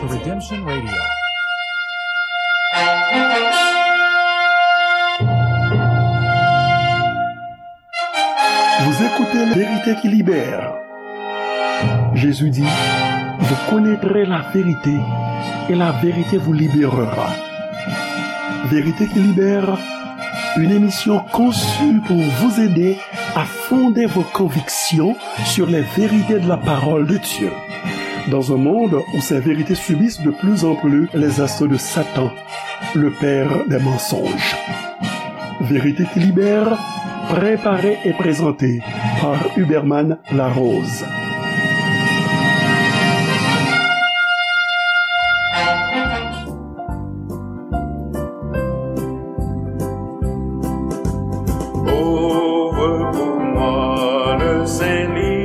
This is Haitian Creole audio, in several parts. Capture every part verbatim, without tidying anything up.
Redemption Radio. Vous écoutez La Vérité qui libère. Jésus dit, vous connaîtrez la vérité et la vérité vous libérera. Vérité qui libère, une émission conçue pour vous aider à fonder vos convictions sur les vérités de la parole de Dieu. Dans un monde où ces vérités subissent de plus en plus les assauts de Satan, le père des mensonges. Vérité qui libère, préparée et présentée par Huberman Larose. Ouvre pour moi le saint livre,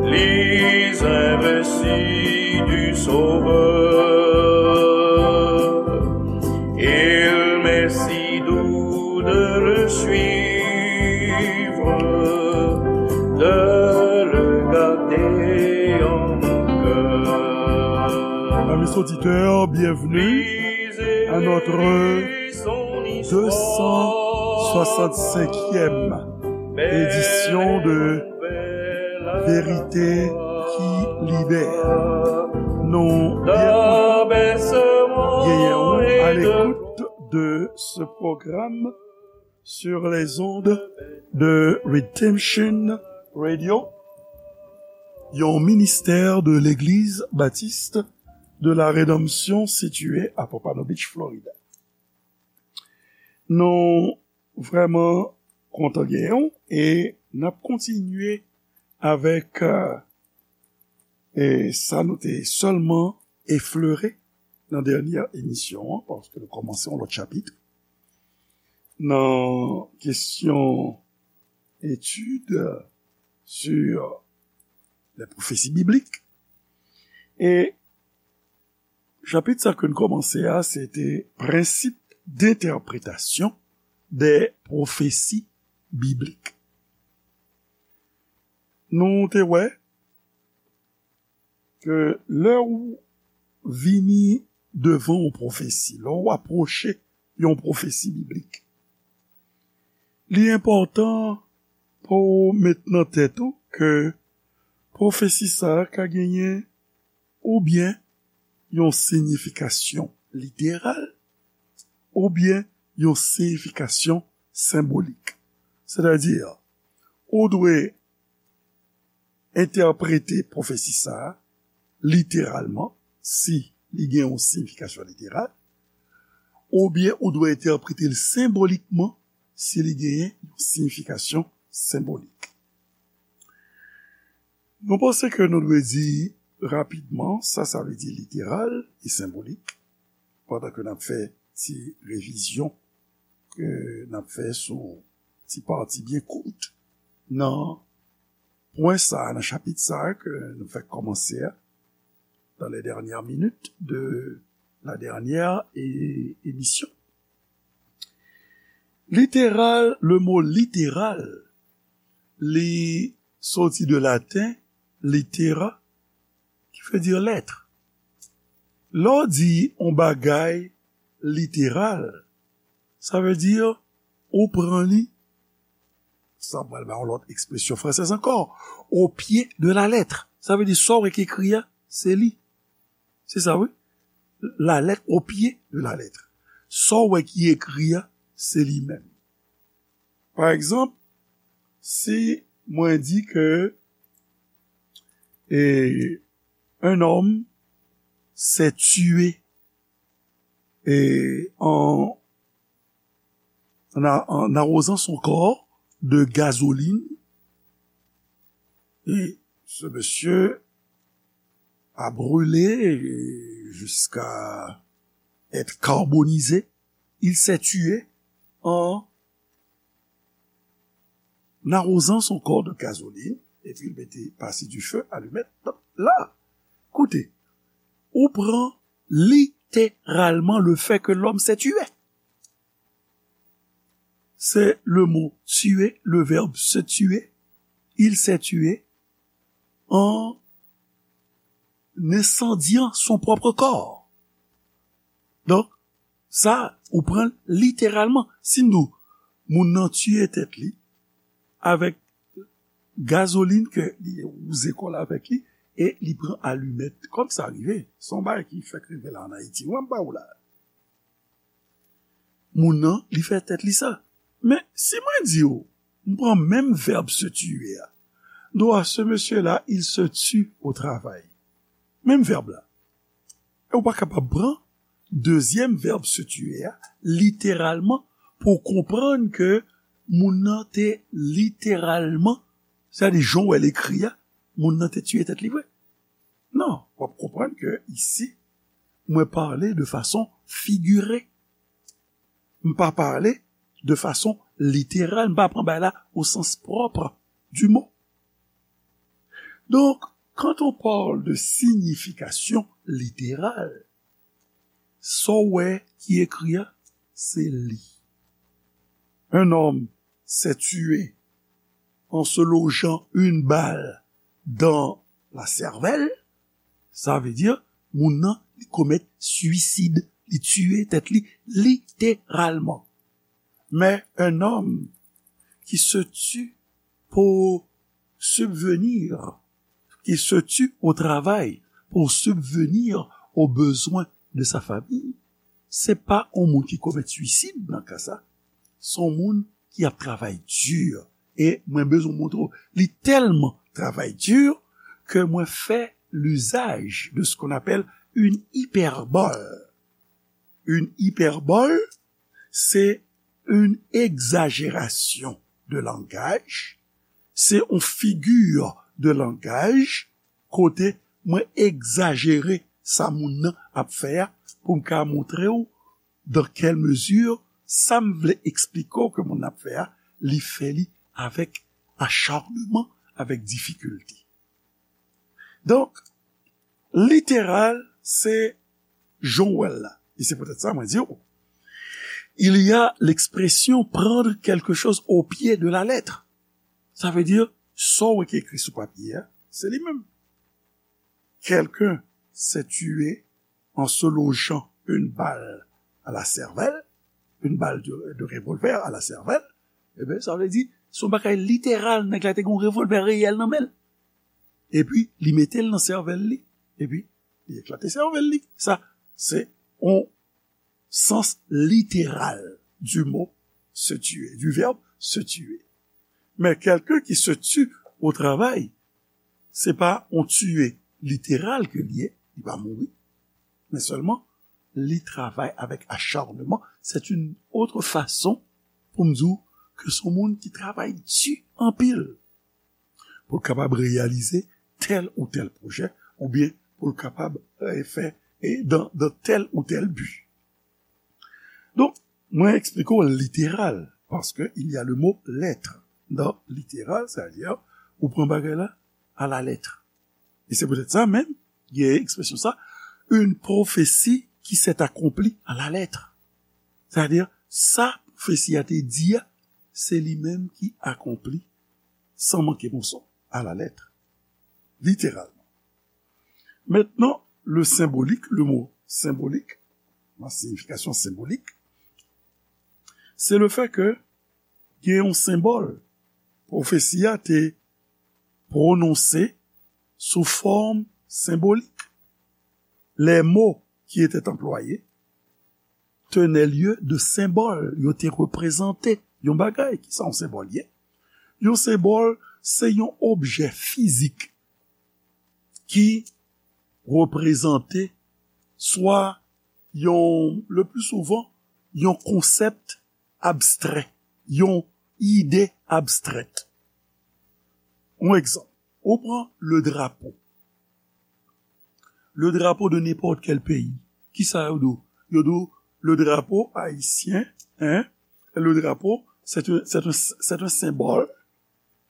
lis un récit du Sauveur. Il m'est si doux de le suivre, de le garder en mon cœur. Amis auditeurs, bienvenue à notre deux cent soixante-cinquième édition de Vérité qui libère. Nou byen kontan genyen w à l'écoute de ce programme sur les ondes de Redemption Radio, yon ministè de Legliz Batis de la Redanmsyon sitiye à Pompano Beach, Florida. Nou vrèman kontan genyen w e n ap kontinye avèk, euh, e sa nou te sèlman eflere nan dènyè emisyon an, paske nou kòmanse yon lòt chapit nan kesyon etid sur les prophéties bibliques. E chapit sa ke n kòmanse a, se te prensip d'entèpretasyon dè pwofesi biblik. Nou te wè ke lè ou vini devan yon pwofesi, lè ou apwoche yon pwofesi biblik, li enpòtan pou w met nan tèt ou ke pwofesi sa a ka genyen oubyen yon siyifikasyon literal, oubyen yon siyifikasyon senbolik. Sètadi, ou dwe entèprete pwofesi sa a literalman, si li gen yon siyifikasyon literal, oubyen ou dwe entèprete l senbolikman, si li genyen yon siyifikasyon senbolik. Nou panse ke nou dwe di rapidman sa sa vle di literal e senbolik, pandan ke n ap fè ti revizyon ke n ap fè sou ti pati byen kout nan pwen sa a, nan chapit sa a ke nou fèk kòmanse a, dans les dernières minutes de la dernière é-, émission. Literal, le mo literal, li soti de laten litera, ki vle di lèt. Lè w di yon bagay literal, sa vle di ou pran li, sa pral ba yon lòt ekspresyon fransèz ankò, au pied de la lettre. Sa vle di sa w wè ki ekri a, se li. Se sa, wi. La lettre au pied de la lettre. Sa w wè ki ekri a, se li menm. Pa egzanp, si mwen di ke, eh, un homme s'est tué, eh, en, en a-, en arrosant son corps de gasoline, et ce monsieur a brûlé jusqu'à être carbonisé. Il s'est tué en arrosant son corps de gasoline, epi l mete pase du feu, allumet, la, koute, ou pran literalman le fait que l'homme s'est tué. C'est le mot tuer, le verbe se tuer. Il s'est tué en en incendiant son propre corps. Donk, sa, ou pran l literalman. Si n di w, moun nan tiye tèt li avèk gazolin ke li wouze kò l avèk li, e li pran alimèt. Kòm sa rive, se yon bagay ki fèk rive la ann Ayiti. Mwen, m ba ou la. Moun nan, li fè tèt li sa. Men, si mwen di w, m pran menm vèb se tuer a, m di w, ah, ce monsieur-là, il se tue au travail. Menm vèb la. E ou pa kapab pran dezyèm vèb se tuer a, literalman, pou w konprann ke moun nan te literalman, sètadi jan w wè l ekri a, moun nan te tiye tèt li vre. Non, w ap konprann ke isi, mwen pale de fason figire. M pa pale de fason literal, m pa pran bagay la au sens propre du mot. Donc, quand on parle de signification littérale, sa w wè ki ekri a, se li. Un homme s'est tué en se logeant une balle dans la cervelle, sa vle di, moun nan, li komèt swisid, li tiye tèt li literalman. Mais un homme qui se tue pour subvenir, qui se tue au travail pour subvenir aux besoins de sa famille, se pa yon moun ki komèt swisid nan ka sa. Se yon moun ki ap travay di. E mwen bezwen montre w, li tèlman travay di ke mwen fè l'usage de ce qu'on appelle une hyperbole. Une hyperbole, c'est une exagération de langage, se yon figi de langaj kote mwen egzajere sa moun nan ap fè a pou m ka montre w dans quelle mesure sa m vle eksplike w ke moun nan ap fè a, li fè li avèk acharnement, avèk difikilte. Donk, literal, se jan w wè l la. E se poutèt sa mwen di w, il y a l'expression prendre quelque chose au pied de la lettre. Sa vle di, sa w wè ki ekri sou papye a, se li menm. Quelqu'un s'est tué en se logeant une balle à la cervelle, une balle de, de revolver à la cervelle, eben, sa vle di, se yon bagay literal, nèg la te gen yon revòlvè reyèl nan men l. Epi, li mete l nan sèvèl li, epi, li eklate sèvèl li. Sa, se yon sens literal du mot se tuer, du verbe se tuer. Men quelqu'un qui se tue au travail, se pa yon tiye literal ke li ye, li pa mouri, men sèlman li travay avèk acharnement. C'est une autre façon pou m di w ke se yon moun ki travay di anpil pou l kapab reyalize tèl ou tèl pwojè, oubyen pou l kapab, eh, fè, eh, dans, dans tel ou tel but. Donk, mwen eksplike w literal, paske il y a le mot lettre dans littéral, c'est-à-dire, ou pran bagay la à la lettre. E se poutèt sa menm, gen ekspresyon sa, une prophétie qui s'est accomplie à la lettre. C'est-à-dire, sa pwofesi a te di a, se li menm ki akonpli san manke moso, à la lettre, littéralement. Maintenant, le symbolique, le mot symbolique, la signification symbolique, c'est le fait que gen yon senbòl pwofesi a te pwononse sou fòm senbolik. Les mots qui étaient employés tenaient lieu de symbole. Yo te reprezante yon bagay. Kisa yon senbòl ye? Yon senbòl, se yon objè fizik ki reprezante swa yon, le plus souvent, yon konsèp abstrè, yon ide abstrèt. Yon egzanp, ou pran le drapeau. Le drapeau de n'importe quel pays. Kisa yo di w? Yo di w, le drapeau haïtien, hein? Le drapeau, c'est un, c'est un, c'est un symbole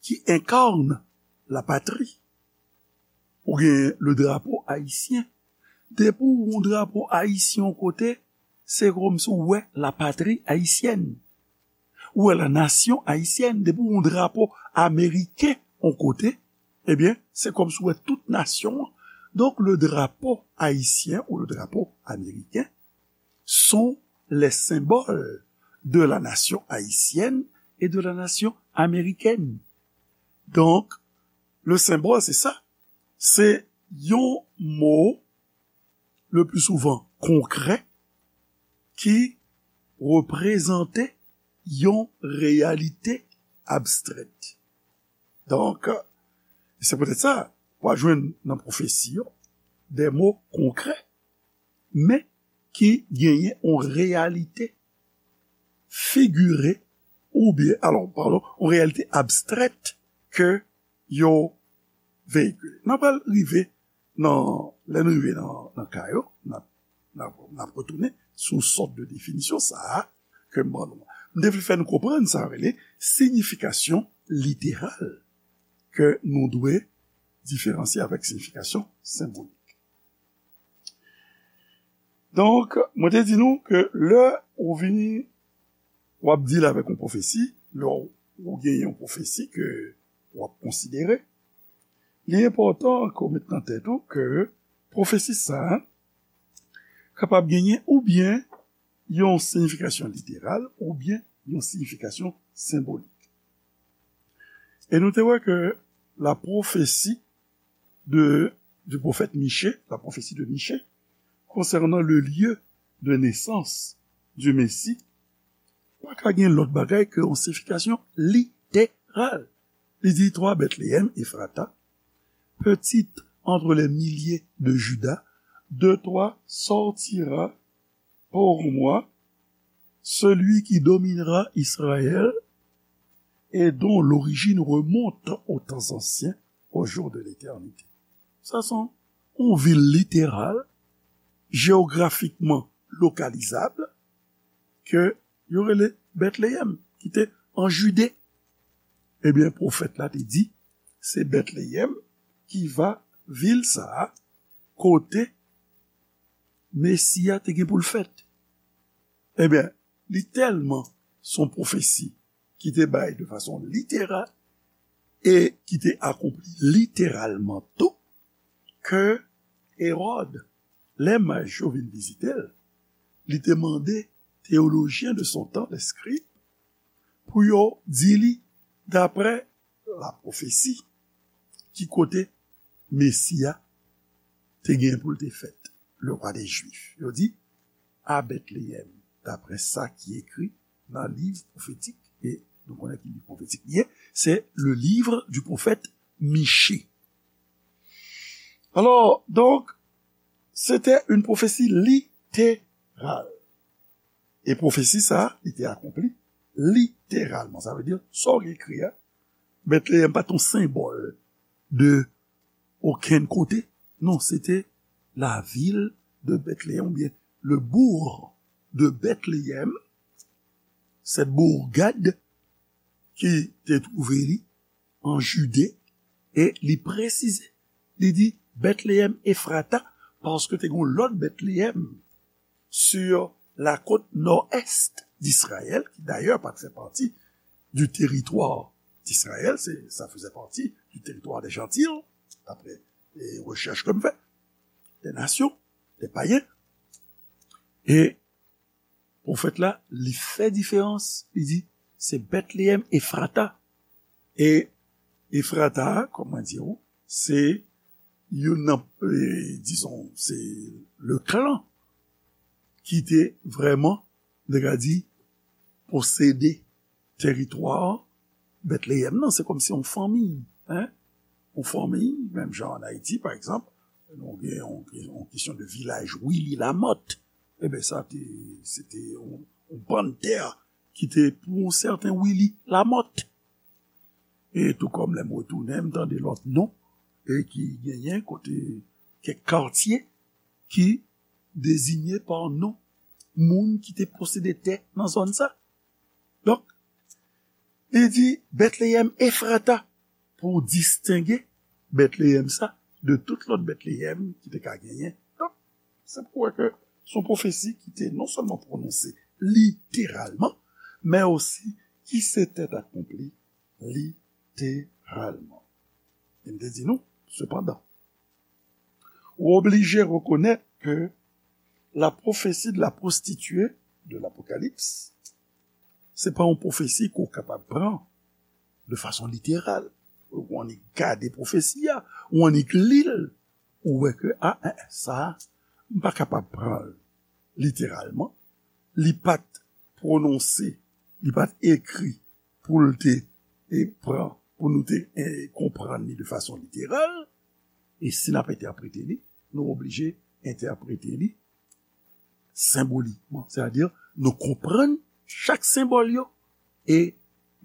qui incarne la patrie. Ou gen le drapeau haïtien. Depi w wè yon drapo ayisyen yon kote, se kòmsi w wè la patrie haïtienne. Ou wè la nation haïtienne. Depi w wè yon drapo ameriken yon kote, ebyen, se kòmsi w wè tout nasyon an. Donc, le drapeau haïtien ou le drapeau américain sont les symboles de la nation haïtienne et de la nation américaine. Donc, le symbole, c'est ça. Se yon mo, le plus souvent konkrè, ki reprezante yon reyalite abstrèt. Donk, se poutèt sa, w a jwenn nan pwofesi yo de mo konkrè, men ki genyen yon reyalite figire oubyen, alò, padon, yon reyalite abstrèt ke yo veyikile. N ap pral rive nan, lè n rive nan, nan ka yo, n ap, n ap, n ap retounen sou sòt de definisyon sa a ke m ban nou an. M te vle fè nou konprann sa rele siyifikasyon literal ke nou dwe diferansye avèk siyifikasyon senbolik. Donk, mwen te di nou ke lè ou vini, w ap deal avèk yon pwofesi, lè w, ou genyen yon pwofesi ke w ap konsidere, li enpòtan ke w met nan tèt ou ke pwofesi sa a kapab genyen oubyen yon siyifikasyon literal oubyen yon siyifikasyon senbolik. E nou te wè ke la prophétie de, du prophète Michée, la prophétie de Michée, concernant le lieu de naissance du Messie, pa ka gen lòt bagay ke yon siyifikasyon literal. Li di, toi, Bethléem Ephrata, petite entre les milliers de Juda, de toi sortira pour moi celui qui dominera Israël et dont l'origine remonte aux temps anciens, aux jours de l'éternité. Sa se yon vil literal, jeyografikman lokalizab, ke yo rele Bètleyèm, ki te an Jide. Ebyen, pwofèt la te di, se Bètleyèm ki va vil sa a, kote Mesi a te gen pou l fèt. Ebyen, li tèlman se yon pwofesi ki te bay de fason literal e ki te akonpli literalman tou, ke Ewòd, lè maj yo vin vizite l, li te mande teyolojyen de son tan, lè skrib, pou yo di li, daprè la pwofesi, ki kote Mesi a te gen pou l te fèt, le roi des Juifs. Yo di, à Bethléem, d'après ça qui est écrit dans le livre prophétique, et nous connaissons qui livre prophétique il est, c'est le livre du prophète Michée. Alors, donc, c'était une prophétie littérale. E pwofesi sa a, li te akonpli literalman. Sa vle di, sa w ekri a, Bètleyèm pa t yon senbòl de okenn kote. Non, se te la ville de Bethléem, oubyen le bourg de Bethléem, cette bourgade ki te twouve li an Jide, e li presize, li di Bètleyèm Efrata, paske te gen yon lòt Bètleyèm sur la côte nord-est d'Israël, qui d'ailleurs pas fait partie du territoire d'Israël, c'est, ça faisait partie du territoire des Gentils, d'après les recherches que je fais, des nations, des païens. Et pwofèt la, li fè diferans, li di, se Bètleyèm Efrata. E Efrata, kòm mwen di w, se youn nan, e, dizon, se le clan ki te vrèman, nou ka di, posede teritwa Bètleyèm nan, se kòmsi yon fanmi, en? Yon fanmi, menm jan an Ayiti, pa egzanp, nou gen yon, yon kesyon de vilaj Willy Lamothe. Eben, sa te, se te yon, yon bann tè ki te pou yon sèten Willy Lamothe. E tou kòm lè m retounen, m tande lòt non, e ki genyen kote kèk katye ki dezinye pa non moun ki te posede tè nan zòn sa. Donk, li di Bètleyèm Efrata pou distenge Bètleyèm sa de tout lòt Bètleyèm ki te ka genyen. Donk, se pou wè ke se yon pwofesi ki te non sèlman pwononse literalman, men osi ki se tèt akonpli literalman. E m te di nou, sepandan, Ou oblije rekonèt ke la prophétie de la prostituée de l'Apocalypse, se pa yon pwofesi ke w kapab pran de fason literal. Ou annik gade pwofesi a, ou annik li l, ou wè ke, a, en, en, sa, m pa kapab pran l literalman. Li pa t pwononse, li pa t ekri pou l te e, pran, pou nou te e, konprann li de fason literal. E si n ap entèprete li, nou oblije entèprete li senbolikman. Sètadi, nou konprann chak senbòl yo e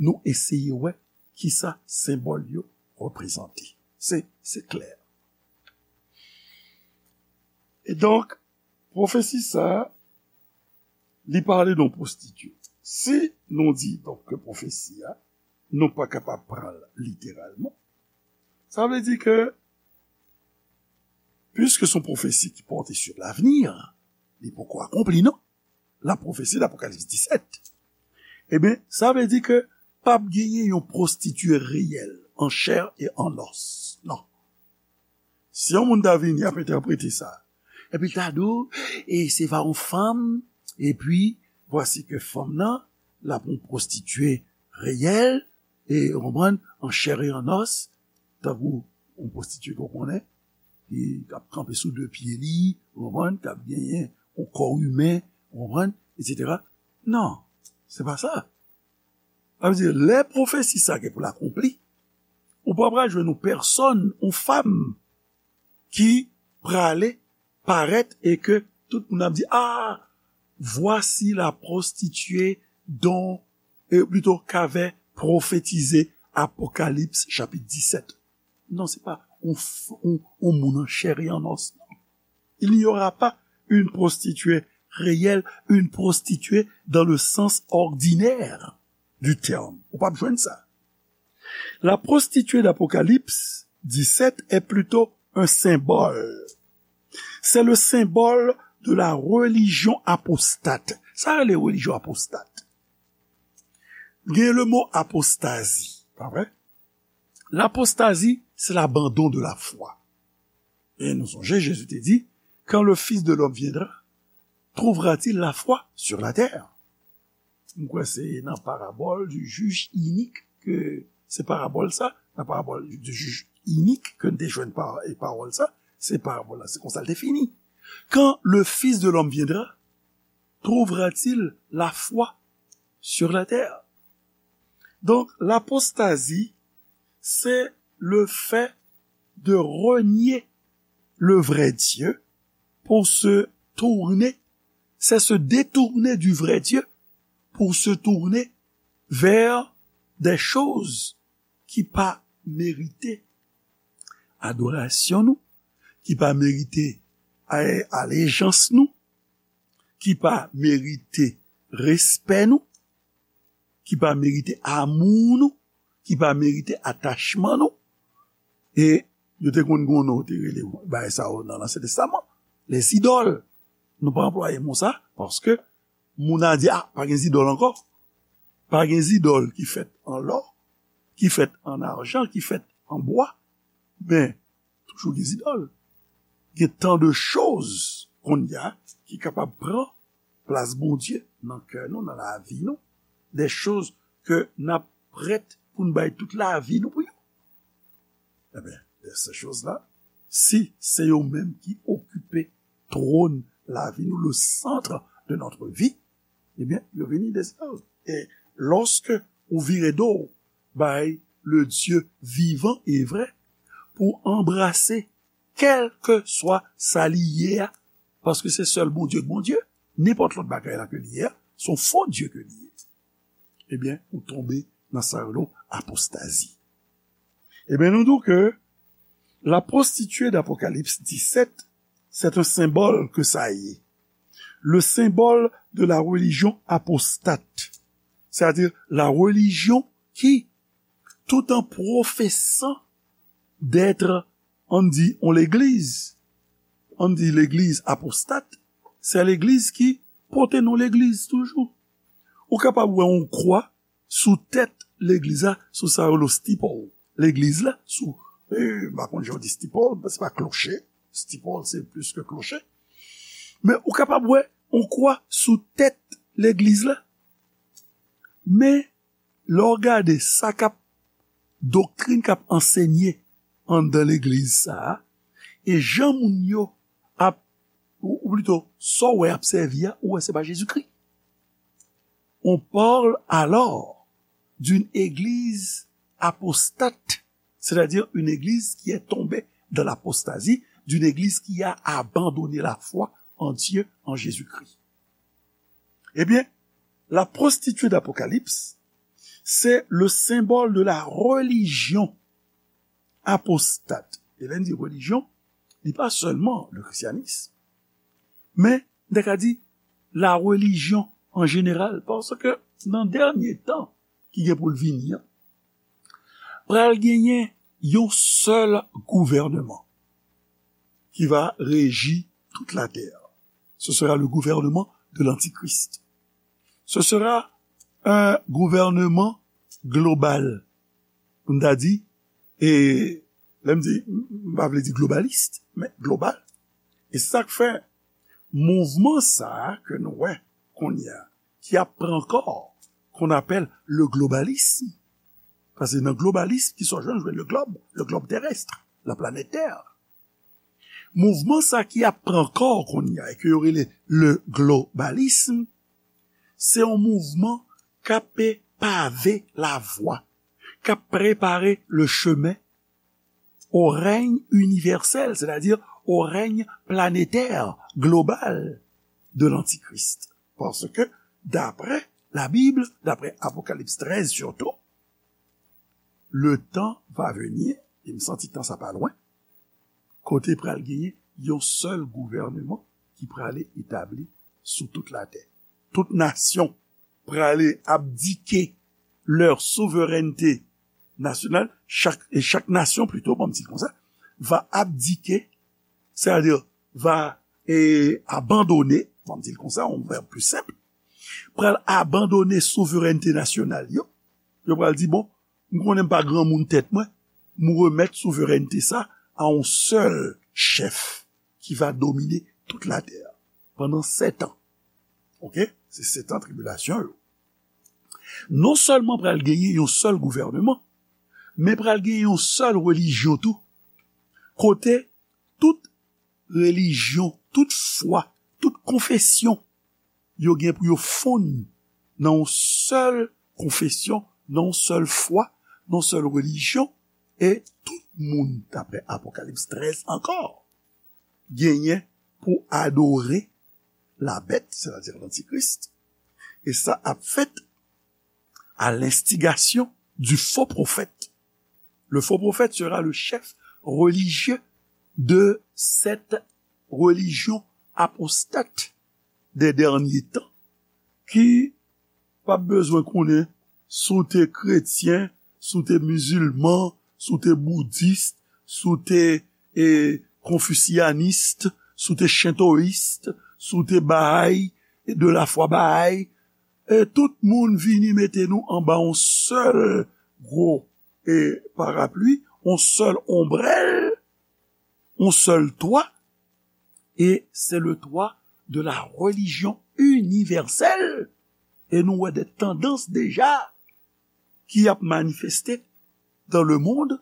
nou eseye wè kisa senbòl yo reprezante. Se, se klè. E donk, pwofesi sa a, li pale de yon pwostitye. Si nou di, donk, ke pwofesi a, nou pa kapab pran l literalman, sa vle di ke, piske se yon pwofesi ki pòte sur l'avenir, li poko akonpli, non? La prophétie d'Apocalypse dix-sept. Ebyen, sa vle di ke p ap genyen yon pwostitye reyèl, an chè e an os. Non. Si yon moun ta vini ap entèprete sa, epi l ta di w, e se pa yon fanm, epi vwasi ke fanm nan, l ap yon pwostitye reyèl, e, ou konprann, an chè e an os, tankou yon pwostitye ke w konnen, ki ap kanpe sou de pye li, ou konprann, k ap genyen yon kò imen, ou konprann, etsetera. Non, se pa sa. Sa vle di, lè pwofesi sa gen pou l akonpli, ou pa pral jwenn yon pèsòn, yon fanm, ki prale parèt e ke tout moun ap di, ah, voici la prostituée dont, euh, plutôt, qu'avait prophétisé Apocalypse chapitre dix-sept. Non, se pa yon, f- yon, yon moun an chè e an os, non. Il n'y aura pas une prostituée réelle, une prostituée dans le sens ordinaire du terme. Ou p ap jwenn sa. La prostituée d'Apocalypse dix-sept est plutôt un symbole. C'est le symbole de la religion apostate. Sa rele religion apostate. Gen le mo apostazi, pa vre? L'apostasie, c'est l'abandon de la foi. E nou sonje, Jezi te di, quand le Fils de l'homme viendra, trouvera-t-il la foi sur la terre? M kwè se nan parabòl du juge inique ke se parabòl sa, nan parabòl du juge inique ke n te jwenn pa, e pawòl sa, se parabòl la, se konsa l te fini. Quand le Fils de l'homme viendra, trouvera-t-il la foi sur la terre? Donc, l'apostasie, c'est le fait de renier le vrai Dieu pour se tourner, c'est se détourner du vrai Dieu pour se tourner vers des choses ki pa merite adorasyon nou, ki pa merite a- alejans nou, ki pa merite respè nou, ki pa merite amou nou, ki pa merite atachman nou. E yo te konn gen yon non te rele bagay sa yo nan Ansyen Testaman, les idoles. Nou pa anplwaye mo sa, paske moun a di, ah, pa gen zidòl ankò. Pa gen zidòl ki fèt an lò, ki fèt an ajan, ki fèt an bwa. Men, toujou gen zidòl. Gen tan de choz kounye a ki kapab pran plas Bondye nan kè nou, nan lavi nou. De choz ke n ap prèt pou n bay tout lavi nou pou yo. Ebyen, de ces choses-là, si se yo menm ki okipe twòn lavi nou, le centre de notre vie, ebyen, yo vini de zidòl. E lòske ou vire do bay le Dieu vivant et vrai pou anbrase kèlkeswa sa li ye a, paske se sèl Bondye k Bondye, nenpòt lòt bagay la ke li ye a, se yon fo Dye ke li ye. Ebyen, ou tonbe nan sa yo rele apostazi. Ebyen, nou di w ke la prostituée d'Apocalypse dix-sept, c'est un symbole que ça y est. Le symbole de la religion apostate, c'est-à-dire la religion qui, tout en professant d'être, ann di, yon legliz, ann di legliz apostat, se legliz ki pote non legliz toujou. Ou kapab wè yon kwa sou tèt legliz la, sou sa yo rele steeple. Legliz la, sou, eh, m pa konn jan yo di steeple, se pa kloche, Steeple, se plis ke kloche. Men ou kapab wè yon kwa sou tèt legliz la. Men lè w gade sa k ap, doktrin k ap ansenye anndan legliz sa a, e jan moun yo ap, ou, ou plito, sa w wè ap sèvi a, ou wè se pa Jezikri. On parle alors d'une église apostate, c'est-à-dire une église qui est tombée dans l'apostasie, d'une église qui a abandonné la foi en Dieu, en Jésus-Christ. Eh bien, la prostituée d'Apocalypse, c'est le symbole de la religion apostate. E lè n di relijyon, li pa sèlman le christianisme, men n ta ka di la religion en général, paske nan dènye tan ki gen pou l vini an, pral genyen yon sèl gouvènman qui va régir toute la terre. Ce sera le gouvernement de l'Antichrist. Ce sera un gouvernement global. Pou n ta di, e lè m di, m pa vle di globalis, men global. E sa k fè mouvman sa a ke nou wè kounye a, ki ap pran kò, qu'on appelle le globalisme. Paske nan globalism, ki sa w jwenn, jwenn le globe, le globe terrestre, la planète Terre. Mouvman sa ki ap pran kò kounye a, e ke yo rele le globalisme, se yon mouvman k ap pave lavwa, k ap prepare le chemen au règne universel, c'est-à-dire au règne planétaire, global de l'Antichrist. Paske, daprè Labib, daprè Apokalips trèz sitou, le temps va venir, e m santi tan sa pa lwen, kote pral genyen yon sèl gouvènman ki prale etabli sou tout latè. Tout nasyon prale abdike leur souveraineté nationale, chak, e chak nasyon plito, bon, m di l konsa, va abdike, c'est-à-dire va e, abandone, bon, m di l konsa, yon vèb pli senp, pral abandone souverènte nasyonal yo. Yo pral di, bon, m konnen m pa granmoun tèt mwen, m remèt souverènte sa a yon sèl chèf ki va domine tout latè pandan sèt an. Oke? Se sèt an tribilasyon yo. Non sèlman pral genyen yon sèl gouvènman, men pral genyen yon sèl relijyon tou, kote tout relijyon, tout fwa, tout konfesyon, yo gen pou yo fonn nan yon sèl konfesyon, nan yon sèl fwa, nan yon sèl relijyon, e tout moun, daprè Apokalips trèz ankò, genyen pou adore la bèt, sètadi lantikris, e sa ap fèt à l'instigation du faux prophète. Le faux prophète sera le chef religieux de cette religion apostate des derniers temps, ki p ap bezwen konnen si w te kretyen, si w te mizilman, si w te boudis, si w te e, konfisyanis, si w te shintois, si w te Baha'i, e de la foi Baha'i, e tout moun vini mete nou anba yon sèl gwo e, parapli, yon sèl onbrèl, yon sèl twa, e se le twa de la religion universelle. E nou wè de tandans deja ki ap manifeste dans le monde,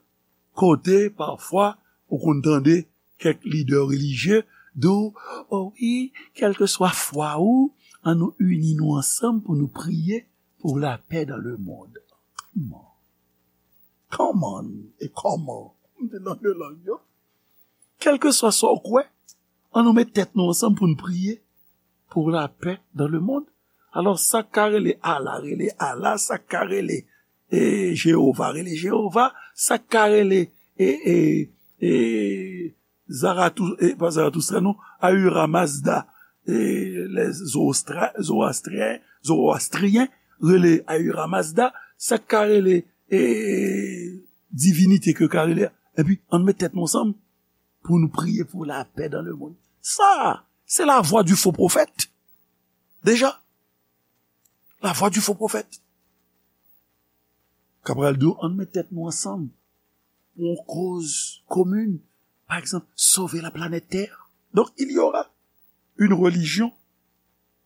kote pafwa ou konn tande kèk lidè relijye di w, o wi, kèlkeswa fwa ou, an nou ini nou ansanm pou nou priye pour la paix dans le monde. Kòman? Kòman e kòman? M te nan de lang yo. Kèlkeswa sa w kwè, an nou met tèt nou ansanm pou n priye pour la paix dans le monde. Alò, sa k ka rele Allah, rele Allah, sa k ka rele e, Jewova, rele Jewova, sa k ka rele e, e, e, Zaratou, e, pa Zaratustra, non, Ahura Mazda, e, les Zoroastra-, Zoroastriens, Zoroastriens, rele Ahura Mazda, sa k ka rele e, divinite ke yo ka rele, epi ann met tèt nou ansanm pou nou priye pour la paix dans le monde. Sa, se la voix du faux prophète. Deja, la voix du faux prophète. K ap pral di w, ann met tèt nou ansanm pou yon koz komin, par exemple, sauver la planète Terre. Donc, il y aura une religion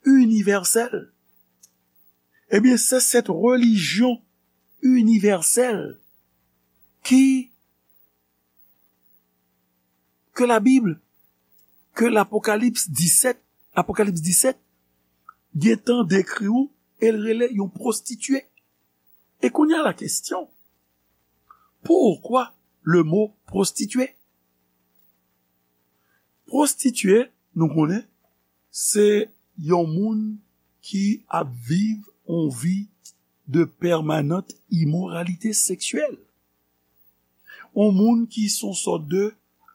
universelle. Eh bien, c'est cette religion universelle qui, que la Bible, que l'Apocalypse dix-sept, Apocalypse dix-sept, gentan décrit ou, elle relève une prostituée. Et qu'on y a la question, pourquoi le mot prostituée? Prostituée, nou konnen, se yon moun ki ap viv yon vi de permanente immoralité sexuelle. Yon moun ki se yon sòt de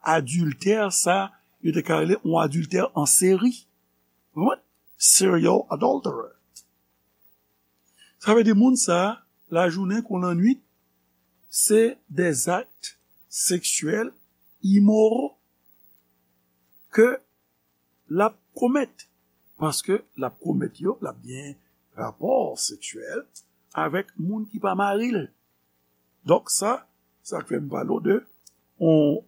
adiltè, sa, yo te ka rele yon adiltè an seri. Ou konprann? Serial adulterer. Sa vle di moun sa, lajounen kon lannwit, se des actes sexuels immoraux ke l ap komèt. Paske l ap komèt yo, l ap gen rapò seksyèl avèk moun ki pa mari l. Donk sa, sa k fè m pale w de yon,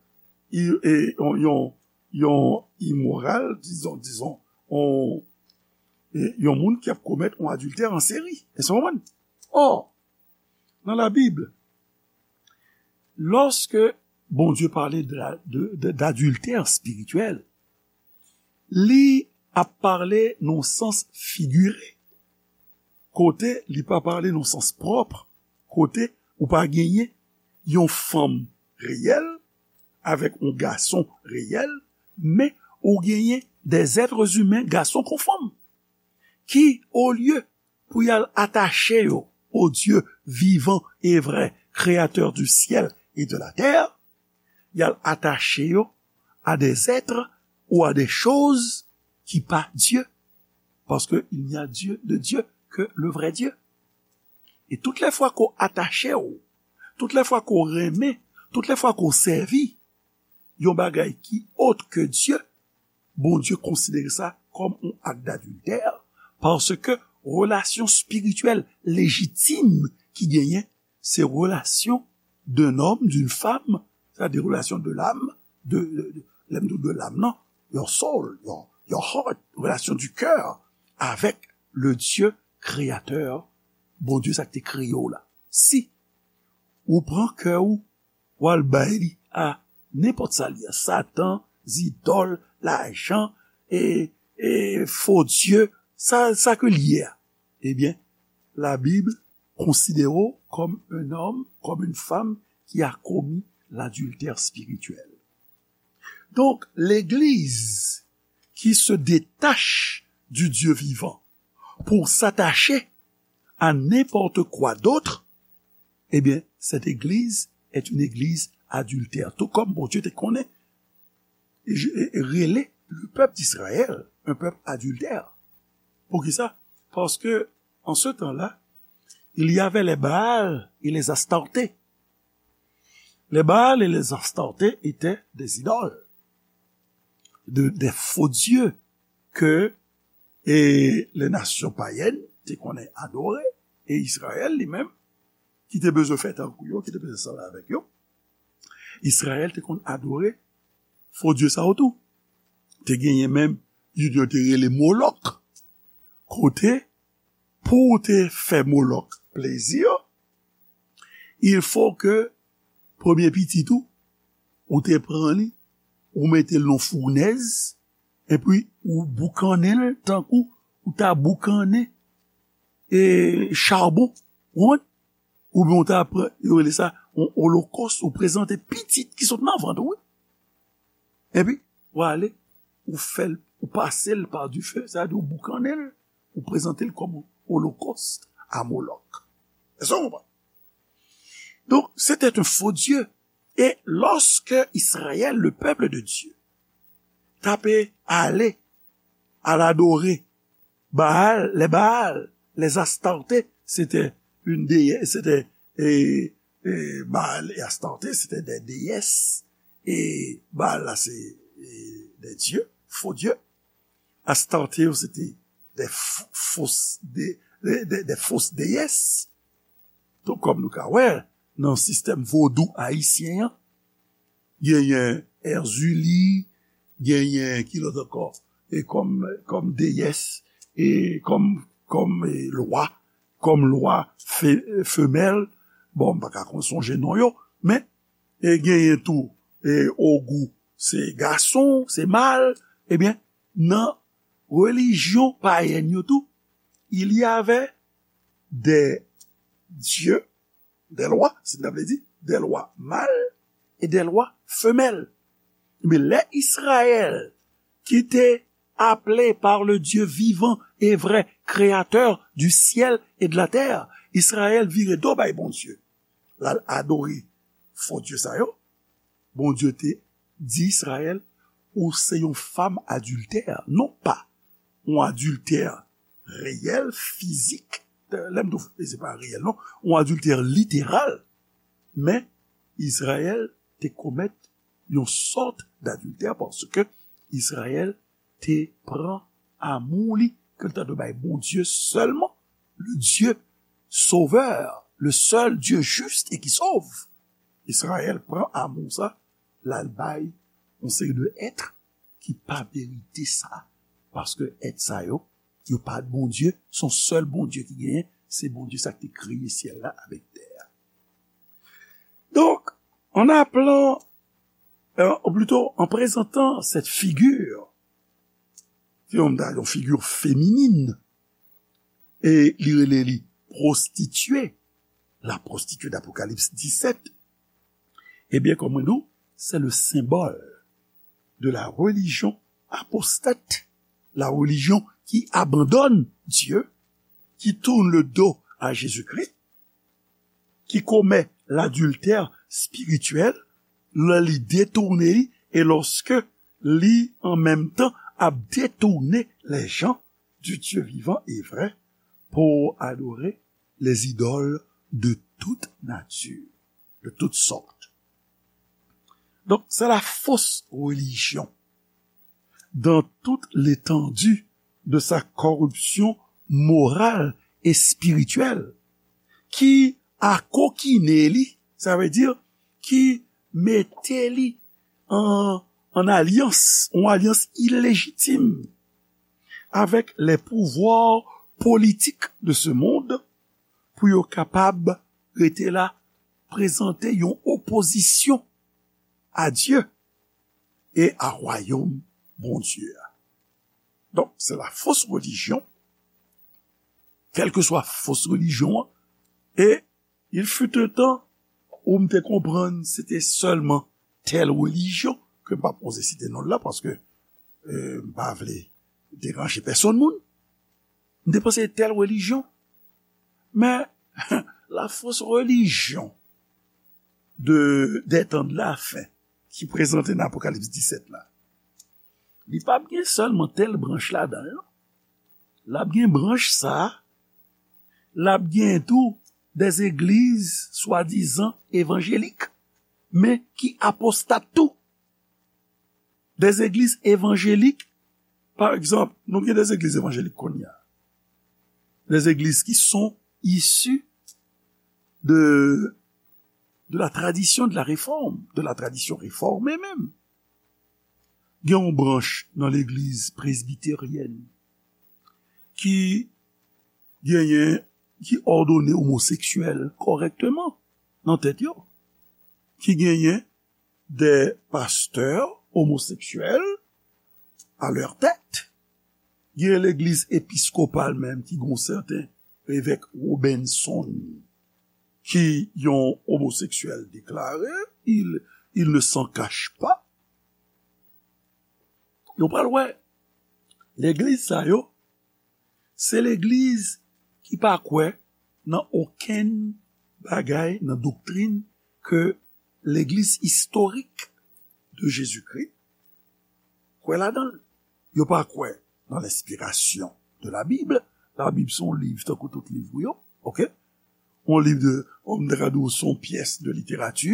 i- e- yon, yon, yon imoral, dizon, dizon, yon, e- yon moun ki ap komèt yon adiltè an seri. Èske w konprann? Ò, nan Labib, lòske Bondye pale de la- de- de- d'adiltè espirityèl, li ap pale nan sans figire, kote li pa pale nan sans pwòp, kote ou pa genyen yon fanm reyèl avèk yon gason reyèl, men ou genyen des êtres humains, gason kon fanm, ki, olye pou y al atache yo au Dieu vivant et vrai, créateur du ciel et de la terre, y al atache yo à des êtres ou à des choses qui pas Dieu, parce que il n'y a Dieu de Dieu que le vrai Dieu. E tout lè fwa ke w atache w, tout lè fwa ke w renmen, tout lè fwa ke w sèvi yon bagay ki autre que Dieu, Bondye konsidere sa kòm yon ak d'adiltè, paske relasyon espirityèl lejitim ki genyen, se relasyon d'un homme, d'une femme, c'est-à-dire relation de l'âme, de, de, de, lè m di de l'âme, non, your soul, your, your heart, relasyon du cœur avec le Dieu créateur, Bondye sa ki te kreye w la. Si ou pran kè w, w al bay li a nenpòt sa li ye, Satan, zidòl, lajan, e, e fo dye, sa, sa ke li ye a, ebyen, Labib konsidere w kòm un homme, comme une femme qui a commis l'adultère spirituel. Donc, l'Église qui se détache du Dieu vivant pour s'attacher à n'importe quoi d'autre, eh bien, cette église est une église adultère. Tout comme Bondye te konnen, e, e, rele le peuple d'Israël un peuple adultère. Poukisa? Parce que en ce temps-là, il y avait les Baal et les Astartés. Les Baal et les Astartés étaient des idoles, de, des faux dieux que e les nations païennes te konnen adore, e Izrayèl li menm, ki te bezwen fè tankou yo, ki te bezwen sanble avèk yo, Izrayèl te konn adore fo dye sa yo tou. Te genyen menm youn yo te rele Molòk. Kote, pou w te fè Molòk plezi, il faut que premye pitit ou, ou te pran li, ou mete l nan founèz, epi ou boukannen l tankou ou ta boukannen, e, charbon, ou konprann? Oubyen ou ta pran, yo rele sa yon olokòs, ou prezante pitit ki sot nan vant ou, wi. Epi, ou ale, ou fè l, ou pase l pa dife, sa vle di ou boukannen l, ou prezante l kòm olokòs a Molòk. Èske w konprann? Donc, c'était un faux Dieu. Et lorsque Israël, le peuple de Dieu, t ap ale al adore Baal, les Baal, les Astartés, c'était une déesse, c'était, et, et Baal et Astarté, c'était des déesses. Et Baal, là, c'est, et des dieux, faux dieux. Astarté, c'était des f- fausses, des, des, des, des fausses déesses. Donk, kòm nou ka wè, nan sistèm vodou ayisyen an, genyen Èzili, genyen ki lòt ankò, e kòm, kòm deyès, e kòm, kòm, e, lwa, kòm lwa fe-, femèl, bon, m pa ka konn sonje non yo, men, e genyen tou, e, Ogou, se gason, se mal, ebyen, nan relijyon payèn yo tou, il y avait des dieux, des lois, si n ta vle di, des lois mâles et des lois femelles. Men lè Israël, ki te appelé par le Dieu vivant et vrai, créateur du ciel et de la terre, Israël vire do bay Bondye, l al adore fo dye sa yo, Bondye te di Israël, ou se yon fanm adiltè, non pa yon adiltè reyèl, fizik, lè m di w, se pa reyèl, non, yon adiltè literal, men Izrayèl te komèt yon sòt dadiltè paske Izrayèl te pran amou li ke l ta dwe bay Bondye sèlman, le Dieu sauveur, le seul Dieu juste et qui sauve. Izrayèl pran amou sa, l al bay yon seri de èt ki pa merite sa, paske èt sa yo, yo pa Bondye, se yon sèl Bondye ki genyen, se Bondye sa ki te kreye syèl la avèk tè a. Donk, en appelant, euh, ou plito, en présentant cette figure, ki yon, yon figi feminin, e li rele li pwostitye, la pwostitye d'Apocalypse dix-sept, ebyen, kòm mwen di w, c'est le symbole de la religion apostate, la religion qui abandonne Dieu, qui tourne le dos à Jésus-Christ, ki komèt ladiltè espirityèl, lè li detounen li, e lòske li, an menm tan, ap detounen les gens du Dieu vivant et vrai pour adorer les idoles de toute nature, de toutes sortes. Donc, c'est la fausse religion dans toute l'étendue de sa corruption morale et spirituelle, ki akokinen li, sa vle di, ki mete li an, an alyans, yon alyans ilejitim avèk les pouvoirs politiques de ce monde pou yo kapab rete la, prezante yon opozisyon a Dye e a wayòm Bondye a. Donk, se la fausse religion, kèlkeswa fos relijyon an, e il fut un temps où m te konprann se te sèlman tèl relijyon, ke m p ap oze site non l la, paske, euh, m pa vle deranje pèsonn moun. M te panse tèl relijyon. Men, la fausse religion de, des temps de la fin, ki prezante nan Apokalips disèt la, li p ap gen sèlman tèl branch ladan l, non. L ap gen branch sa a, l ap gen tou des églises swadizan evanjelik, men ki apostat tou. Des églises évangéliques, par exemple, nou gen des églises évangéliques kounye a. Des églises qui sont issues de, de la tradition de la réforme, de la tradition réformée menm. Gen yon branch nan legliz presbiteryèn ki genyen, ki òdone omoseksyèl kòrèkteman nan tèt yo, ki genyen des pasteurs homosexuels à leur tête. Gen legliz episkopal menm ki gon sèten evèk Robinson ki yon omoseksyèl deklare, il, il ne s'en cache pas. Yo pral wè, legliz sa yo, se legliz ki pa kwè nan okenn bagay nan doktrin ke legliz istorik de Jezikri kwè ladan l. Yo pa kwè nan lenspirasyon de la Bible. La Bible se yon liv tankou tout liv ou yo, oke? Yon liv de, on ta ka di w, se yon pyès de literati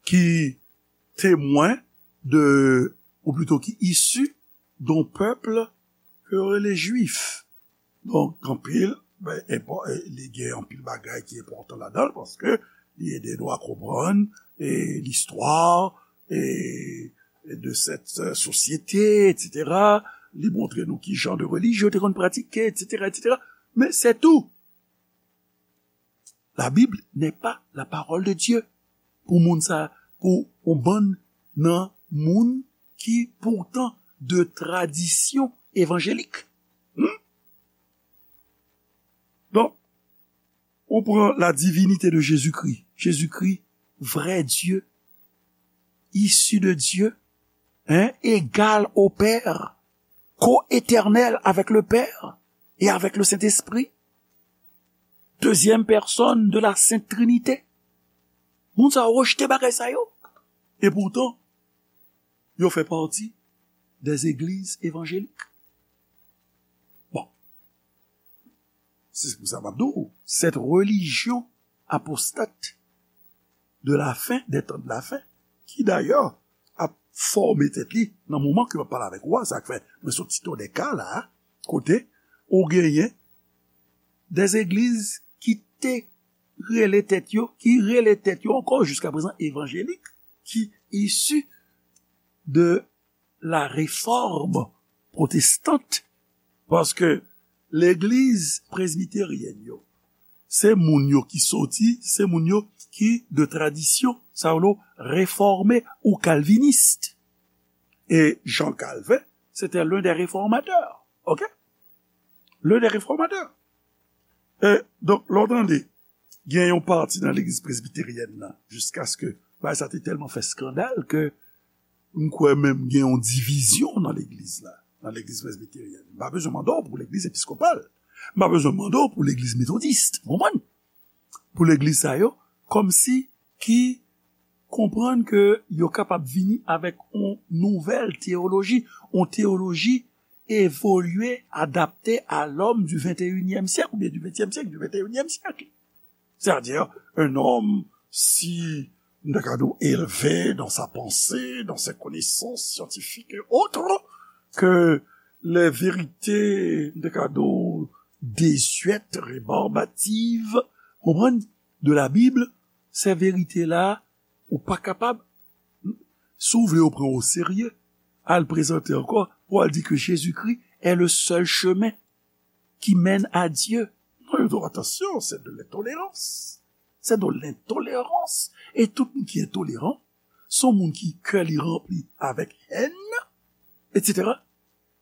ki temwen de, ou plito ki isi d'un peuple ke yo rele Jwif. Donk, anpil, ben, enpò-, e, li gen anpil bagay ki enpòtan ladan l, paske li ede nou a konprann, e, listwa, e, de cette société, et cetera. Li montre nou ki jan de relijyon yo te konn pratike, et cetera, et cetera. Men se tou. La Bible n'est pas la parole de Dieu. Pou moun sa, pou yon bann nan moun ki poutan de tradisyon evanjelik. Hmm? Donk, ou pran la divinité de Jésus-Christ. Jésus-Christ, vrai Dieu, issu de Dieu, hein, égal au Père, co-éternel avec le Père et avec le Saint-Esprit, deuxième personne de la Sainte Trinité. Moun sa yo rejte bagay sa yo. E poutan, yo fè pati des églises évangéliques. Bon, se pou sa m ap di w, cette religion apostate de la fin des temps de la fin, ki dayè ap fòme tèt li nan moman ke m ap pale avèk ou a, sa k fè mwen sot site w de ka la, kote ou genyen des églises ki te rele tèt yo, ki rele tèt yo ankò jiska prezan evanjelik, ki isi de la réforme protestante, paske legliz presbiteryèn yo, se moun yo ki soti, se moun yo ki de tradisyon, sa yo refòme ou kalvinis. E Jean Calvin, c'était l'un des réformateurs, ok? L'un des réformateurs. E, donk, lè w tande, gen yon pati nan legliz presbiteryèn nan, jiskaske bagay sa te tèlman fè eskandal ke m kwè menm gen yon divizyon nan legliz la, nan legliz presbiteryèn. M pa bezwen mande w pou legliz episkopal. M pa bezwen mande w pou legliz metodis, w konprann? Pou legliz sa yo, kòmsi ki konprann ke yo kapab vini avèk yon nouvèl teyoloji, yon teyoloji évolué, adapté à l'homme du vingt et unième siècle, oubyen du vingtième siècle, du vingt et unième siècle. C'est-à-dire un homme si, m ta ka di w, élevé dans sa pensée, dans ses connaissances scientifiques et autres, que les vérités, m ta ka di w, désuètes, rébarbatives, konprann, de la Bible, ces vérités-là, ou pa kapab, si w vle yo pran w o serye, al prezante ankò, pou al di ke Jezikri est le seul chemin qui mène à Dieu. Non, yo di w, attention, c'est de l'intolérance. C'est de l'intolérance. E tout moun ki entoleran, se yon moun ki kè li ranpli avèk hèn, et cetera.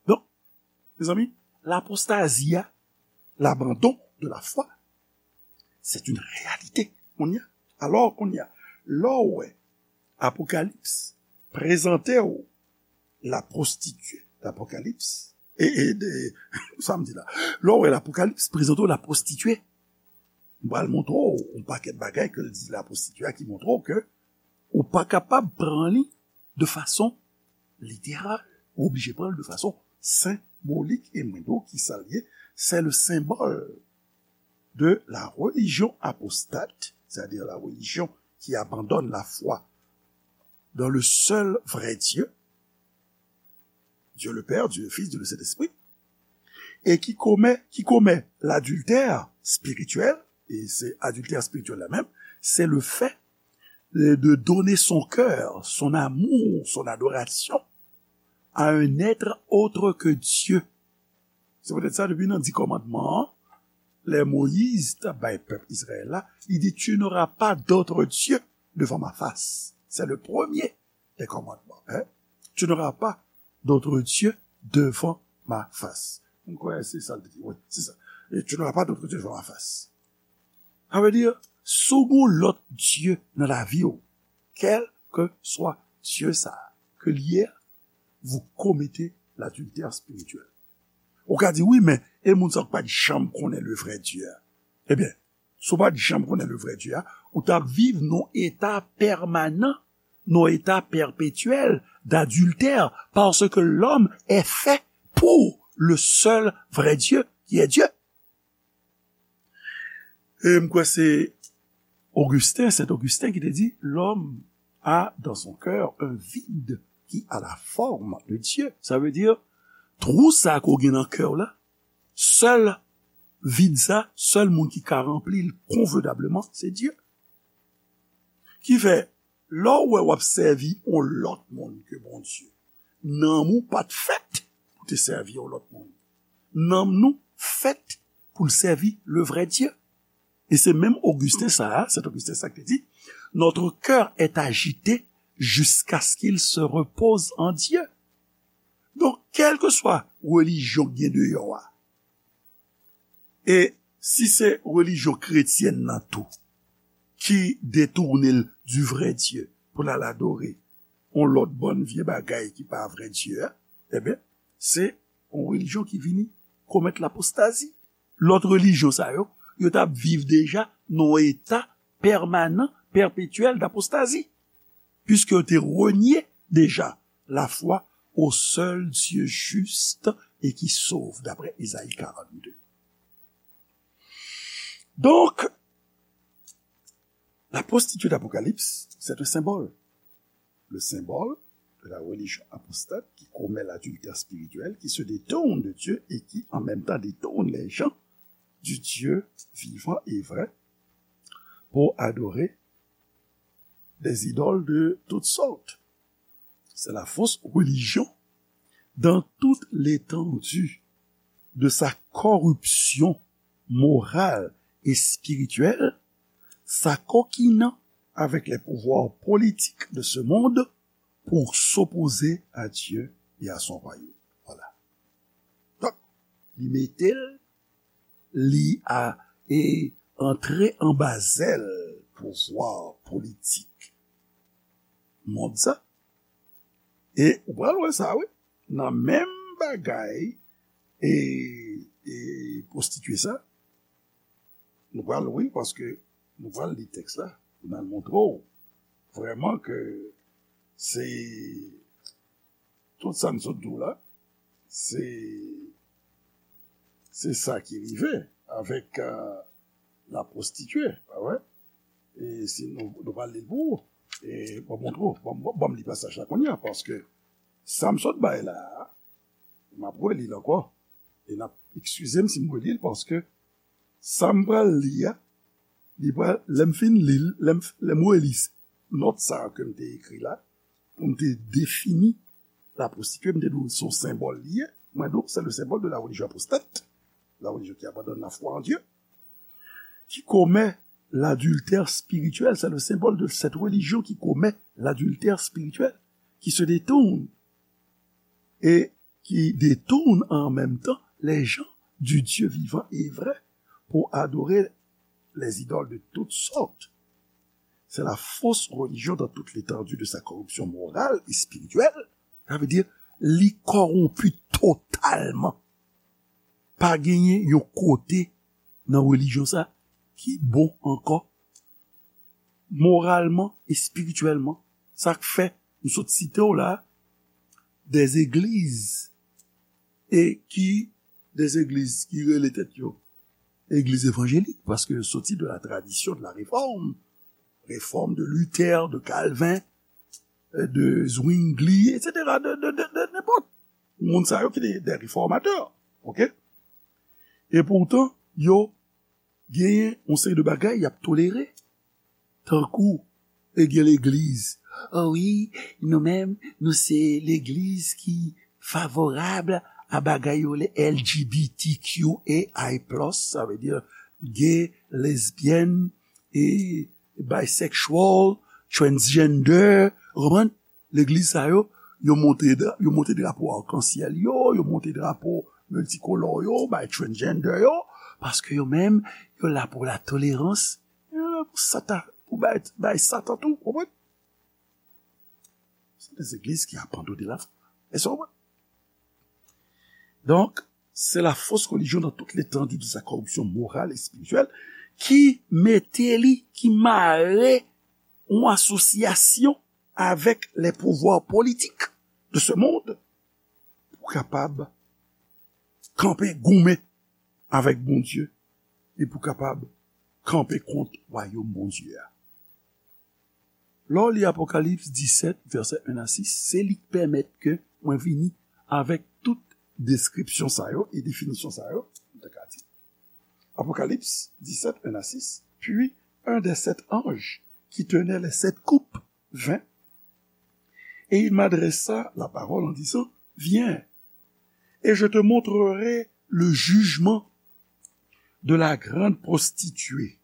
Donk, mezanmi, l'apostasie, l'abandon de la foi, c'est une réalité. Kounye a, alò, kounye a, lè w wè Apokalips prezante w la prostituée, l'Apocalypse, e, e, de, sa m di la, lè w wè l'Apocalypse prezante w la prostituée, m pral montre w yon pakèt bagay ke l di la prostituée a ki montre w ke ou pa kapab pran li de fason literal. Ou oblije pran l de fason senbolik, e mwen di w kisa l ye, c'est le symbole de la religion apostate, c'est-à-dire la religion qui abandonne la foi dans le seul vrai Dieu, Dieu le Père, Dieu le Fils, Dieu le Saint-Esprit, et qui commet, qui commet l'adultère spirituel, et c'est adultère spirituel là même, c'est le fait de, de donner son cœur, son amour, son adoration à un être autre que Dieu. Se poutèt sa, depi nan di kòmandman an, lè Moyiz t ap bay pèp Izrayèl la, li di, tu n'auras pas d'autre Dieu devant ma face. C'est le premier des commandements, hein? Tu n'auras pas d'autre Dieu devant ma face. M kwè se sa l te di. Wi, se sa. Et tu n'auras pas d'autre Dieu devant ma face. Sa vle di, si w gen yon lòt dye nan lavi w, kèlkeswa dye sa a ke l ye a, vous commettez l'adultère spirituel. Ou ka di, wi, men, e moun sa k pa t janm konnen le vrai Dieu a? Ebyen, si w pa t janm konnen le vrai Dieu a, ou t ap viv nan yon eta pèmanan, nan yon eta pèpetyèl d'adultère, parce que l'homme est fait pour le seul vrai Dieu, qui est Dieu. E m kwè se Augustin, Saint Augustin ki te di, l'homme a dans son cœur un vide qui a la forme de Dieu. Sa vle di, twou sa ke w gen nan kè w la, sèl vid sa, sèl moun ki ka ranpli l konvenableman, se Dye. Ki fè, Lè w wè w ap sèvi yon lòt moun ke Bondye, nanm ou pa t fèt pou te sèvi yon lòt moun. Nanm nou fèt pou l sèvi le vrai Dieu. E se menm Ogisten sa a, Sent Ogisten sa ki te di, notre cœur est agité jusqu'à ce qu'il se repose en Dieu. Donk, kèlkeswa relijyon k gen deyò a, e si se relijyon kretyèn nan tou ki detounen l du vrai Dieu pou l al adore yon lòt bann vye bagay ki pa vrè Dye a, ebyen, se yon relijyon ki vini komèt lapostazi. Lòt relijyon sa yo, yo t ap viv deja nan yon eta pèmanan, pèpetyèl dapostazi, piske yo te renye deja lafwa au seul Dieu juste et qui sauve, d'après Ésaïe quarante-deux. Donc, la prostituée d'Apocalypse, c'est un symbole. Le symbole de la religion apostate qui commet l'adultère spirituel, qui se détourne de Dieu et qui, en même temps, détourne les gens du Dieu vivant et vrai pour adorer des idoles de toutes sortes. C'est la fausse religion dans toute l'étendue de sa corruption morale et spirituelle, s'acoquinant avec les pouvoirs politiques de ce monde pour s'opposer à Dieu et à son royaume. Voilà. Donk, li mete l, li a, e antre anba zèl pouvwa politik mond sa. E ou pral wè sa, wi. Nan menm bagay, e, e pwostitye sa, nou pral, wi, paske nou pral li tèks la, pou n al montre w vrèman ke se tout sa m sot di w la, se, se sa ki rive avèk, euh, la prostituée, pa vre? E si nou, nou pral li l pou ou, e ban m montre w, ban m, ban m li pasaj la kounye a, paske sa m sot bay la a, m ap reli l ankò, e n ap, eskize m si m reli l, paske sa m pral li a, li pral, lè m fin li l, lè m, lè m reli nòt sa a ke m te ekri la, pou m te defini la prostituée, m te di w se yon senbòl li ye. Mwen di w, c'est le symbole de la religion apostate, la religion qui abandonne la foi en Dieu, qui commet l'adultère spirituel. C'est le symbole de cette religion qui commet l'adultère spirituel, qui se détourne et qui détourne en même temps les gens du Dieu vivant et vrai pour adorer les idoles de toutes sortes. C'est la fausse religion dans toute l'étendue de sa corruption morale et spirituelle. Sa vle di, li kòwonpi totalman. Pa genyen yon kote nan relijyon sa ki bon ankò, moralman, espirityèlman. Sa k fè, m sot site w la, des églises, e ki, des églises ki rele tèt yo egliz evanjelik, paske yo soti de la tradition de la réforme, réforme de Luther, de Calvin, euh, de Zwingli, et cetera, de, de, de, de nenpòt. Moun sa yo ki te de reformatè, ok? E poutan, yo genyen yon seri de bagay y ap tolere, tankou, e gen legliz. O wi, nou menm, nou se legliz ki favorab a bagay yo le L G B T Q A I plus, sa vle di gay, lesbyèn, e bisexual, transgender, ou konprann? Legliz sa yo, yo monte dra-, yo monte drapo akansyèl yo, yo monte drapo miltikolò yo, bay transgender yo, paske yo menm, yo la pou la tolerans, yo la pou sata, pou bay, bay Satan tou, konprann? Se de legliz ki abandone la foi. Èske w konprann? Donk, c'est la fausse religion dans toute l'étendue de sa corruption morale et spirituelle ki mete li, ki mare yon asosyasyon avèk les pouvoirs politiques de ce monde pou kapab kanpe goumen avèk Bondye e pou kapab kanpe kont wayòm Bondye a. Lè w li Apokalips disèt, vèsè en a sis, se li k pèmèt ke mwen vini avèk tout deskripsyon sa yo e definisyon sa yo, m ta ka di. Apocalypse dix-sept, un à six. Puis un des sept anges qui tenait les sept coupes vingt. Et il m'adressa la parole en disant, viens, et je te montrerai le jugement de la grande prostituée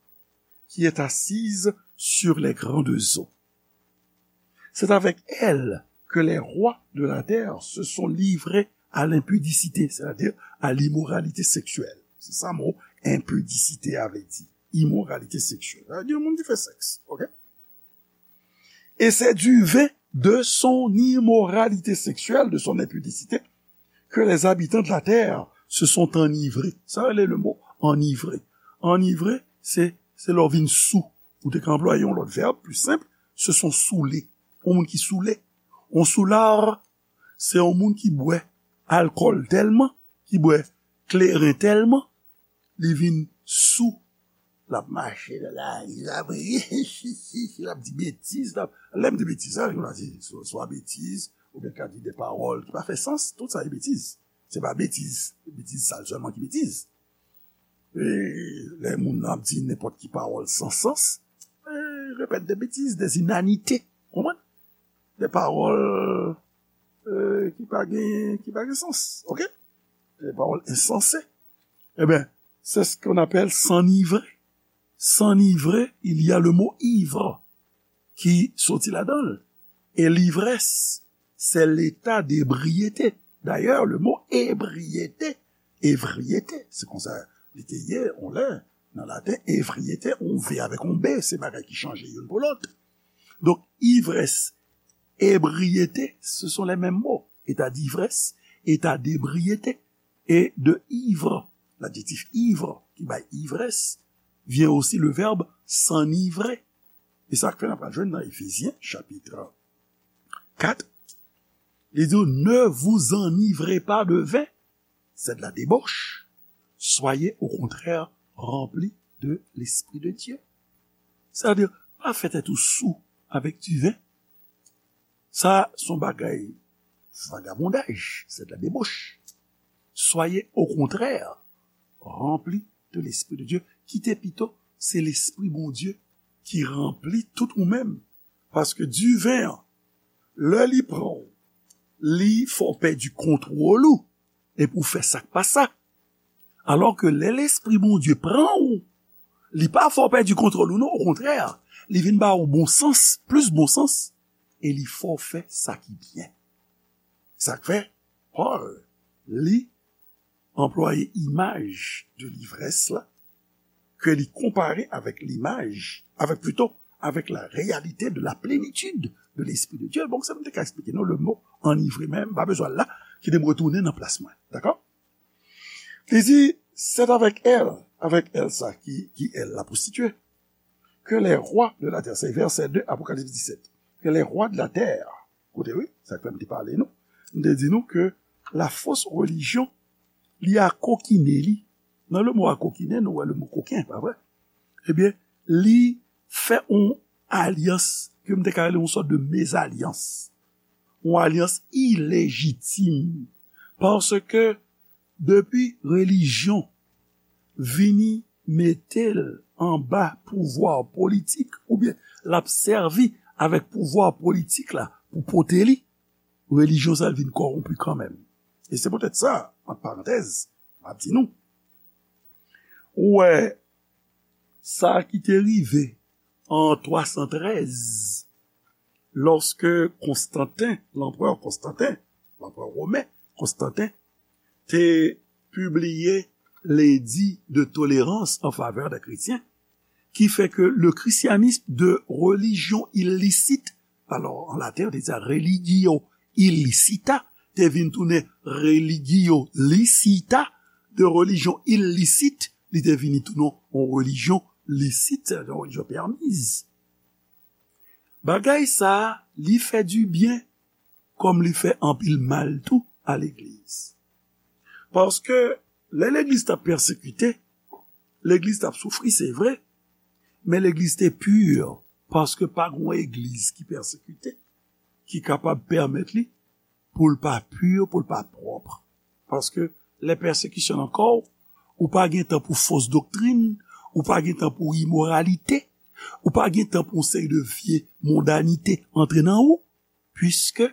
qui est assise sur les grandes eaux. C'est avec elle que les rois de la terre se sont livrés à l'impudicité, c'est-à-dire à l'immoralité sexuelle. Se sa mo enpidisite a vle di, imoralite seksyèl. Sa vle di yon moun ki fè sèks, ok? Et c'est du vin de son immoralité sexuelle, de son impudicité, que les habitants de la terre se sont enivrés. Sa rele le mo enivré. Enivré, se, se lè w vin sou. Ou te ka anplwaye yon lòt vèb, pli senp, se sont saoulés. Yon moun ki soule. Yon soulard, se yon moun ki bwè alkòl tèlman, ki bwè kleren tèlman, li vin sou. L ap mache nan lari, l ap, l ap di betiz, l ap, lè m di betiz, sa, yo di swa, swa betiz, oubyen ka di de pawòl ki pa fè sans, tout sa se betiz. Se pa betiz, betiz sal sèlman ki betiz. E lè moun nan ap di nenpòt ki pawòl san sans, e, repèt de betiz, de inanite, konprann? De pawòl, e, ki pa gen, ki pa gen sans, ok? De pawòl ensanse. Ebyen, c'est ce qu'on appelle s'enivrer. S'enivrer, il y a le mot ivre qui sortit là-dedans. Et l'ivresse, c'est l'état d'ébriété. D'ailleurs, le mot ébriété, ébriété, se konsa li te ye, on lè, nan laten, ébriété, on V avec on B, se bagay ki chanje youn pou lòt. Donk, ivrès, ébriété, ce sont les mêmes mots. État d'ivresse, état d'ébriété. Et de ivre, l'adjectif ivre, qui bay ivresse, vient aussi le verbe s'enivrer. E sa k fè n ap jwenn nan Efezyen, chapit kat, li di, ne vous enivrez pas de vin, c'est de la débauche. Soyez au contraire remplis de l'Esprit de Dieu. Sa vle di, pa fè tèt ou sou avèk diven. Sa se yon bagay vagabondaj, c'est de la débauche. Soyez au contraire remplis de l'Esprit de Dieu. Kite pito se Lespri Bondye ki ranpli tout ou menm. Paske diven an, lè li pran w, li fè w pèdi kontwòl ou, epi w fè sa k pa sa. Alò ke lè Lespri Bondye pran w, li pa fè w pèdi kontwòl ou non, okontrè, li vin ba w bon sans, plis bon sans, e li fè w fè sa ki byen. Sa k fè, Pòl, li anplwaye imaj de livrès la, ke li konpare avèk limaj, avèk, plito, avèk la réalité de la plénitude de l'Esprit de Dieu. Bon, sa m te ka eksplike nou le mo enivré, men m pa bezwen l la, kite m retounen nan plas mwen. Dakò? Li di, c'est avec elle, avec elle sa ki, ki elle, la prostituée, que les rois de la terre, se vèsè de Apokalips disèt, que les rois de la terre, koute wi, sa k fè m te pale nou, m te di nou ke la fausse religion, li akokinen li. Nan le mo akokinen, nou wè le mo koken, pa vre? Ebyen, li fè yon alyans, ke m te ka rele yon sòt de mezalyans. Yon alyans ilejitim. Paske depi relijyon vini mete l anba pouvwa politik, oubyen l ap sèvi avèk pouvwa politik la pou pote li, relijyon sa vin kòwonpi kanmenm. E se poutèt sa, ant parantèz, m ap di nou, ou wè, sa ki te rive an twa san trèz, lòske Konstanten, lanprè Konstanten, lanprè women Konstanten, te pibliye ledi de tolerans an favè de kretyen, ki fè ke le christianisme de religion illicite, alò, an laten, yo te di sa religio illicita, te vin tounen religio licita, de religion illicite, li te vini tounen yon relijyon lisit, se yon relijyon pèmiz. Bagay sa a, li fè dibyen, kòm li fè anpil mal tou a legliz. Paske lè legliz t ap pèsekite, legliz t ap soufri, se vre, men legliz te pi, paske pa gen yon egliz ki pèsekite, ki kapab pèmèt li pou l pa pi, pou l pa pwòp. Paske lè pèsekisyon nan kò w, ou pa gen tan pou fos doktrin, ou pa gen tan pou imoralite, Ou pa gen tan pou yon seri de vye mondanite antre nan ou, puisque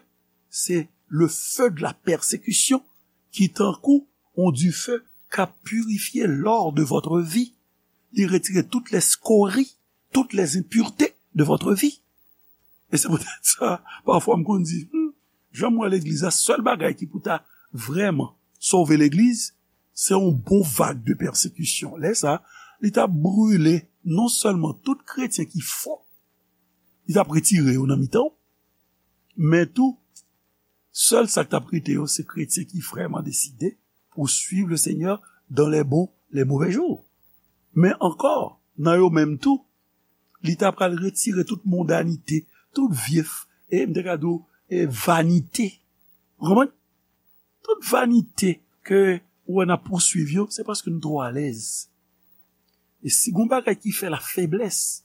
c'est le feu de la persécution qui tankou yon dife k ap pirifye lò de votre vie. Li retire tout lè skori, tout lè enpirte de votre vie. E se poutèt sa, pafwa m konn di, hmm, jan m wè legliz la, sèl bagay ki pou ta vrèman sove legliz, se yon bon vag de pèsekisyon. Lè sa, li t ap brile non sèlman tout kretyen ki fo, li t ap retire yo nan mitan w, men tou, sèl sa k t ap rete yo, se kretyen ki vrèman deside pour suivre le Seigneur dans les bons, les mauvais jours. Men ankò, nan yo menm tou, li ta pral retire tout mondanite, tout vye, e m te ka di w, e vanite. Ou konprann? Tout vanite ke ou wè n ap pouswiv yo, se paske nou twò alèz. E si gon bagay ki fè la faiblesse